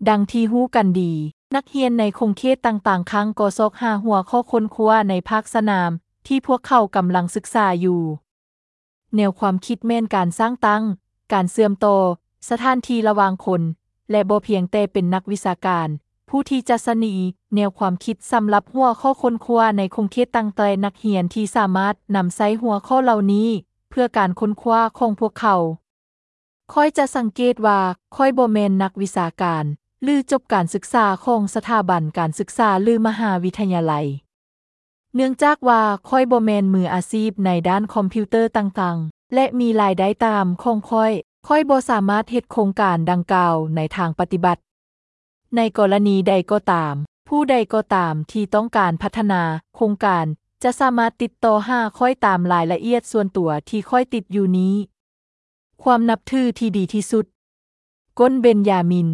ດັ່ງທີ່ຮູ້ກັນດີ, ນັກຮຽນໃນຂົງເຂດຕ່າງໆ ຄັ້ງກໍຊອກຫາຫົວຂໍ້ຄົ້ນຄວ້າໃນພາກສະໜາມທີ່ພວກເຂົາກຳລັງສຶກສາຢູ່. ແນວຄວາມຄິດແມ່ນການສ້າງຕັ້ງ, ການເຊື່ອມຕໍ່, ສະຖານທີ່ລະຫວ່າງຄົນ, ແລະ ບໍ່ພຽງແຕ່ເປັນນັກວິຊາການ ຜູ້ທີ່ຈະສະໜີແນວຄວາມຄິດສຳລັບຫົວຂໍ້ຄົ້ນຄວ້າໃນຂົງເຂດຕັ້ງແຕ່ນັກຮຽນທີ່ສາມາດນຳໃຊ້ຫົວຂໍ້ເຫຼົ່ານີ້ເພື່ອການຄົ້ນຄວ້າຂອງພວກເຂົາ. ຂ້ອຍຈະສັງເກດວ່າຂ້ອຍບໍ່ແມ່ນນັກວິຊາການ ຫຼື ຈົບການສຶກສາຂອງສະຖາບັນການສຶກສາ ຫຼື ມະຫາວິທະຍາໄລ. ເນື່ອງຈາກວ່າຂ້ອຍບໍ່ແມ່ນມືອາຊີບໃນດ້ານຄອມພິວເຕີຕ່າງໆ ແລະ ມີລາຍໄດ້ຕາມຂອງຂ້ອຍ, ຂ້ອຍບໍ່ສາມາດເຮັດໂຄງການດັ່ງກ່າວໃນທາງປະຕິບັດ. ໃນກໍລະນີໃດກໍຕາມ, ຜູ້ໃດກໍຕາມທີ່ຕ້ອງການພັດທະນາໂຄງການ ຈະສາມາດຕິດຕໍ່ຫາຂ້ອຍຕາມລາຍລະອຽດສ່ວນຕົວທີ່ຂ້ອຍຕິດຢູ່ນີ້. ຄວາມນັບຖືທີ່ດີທີ່ສຸດ. ກົນເບັນຢາມິນ.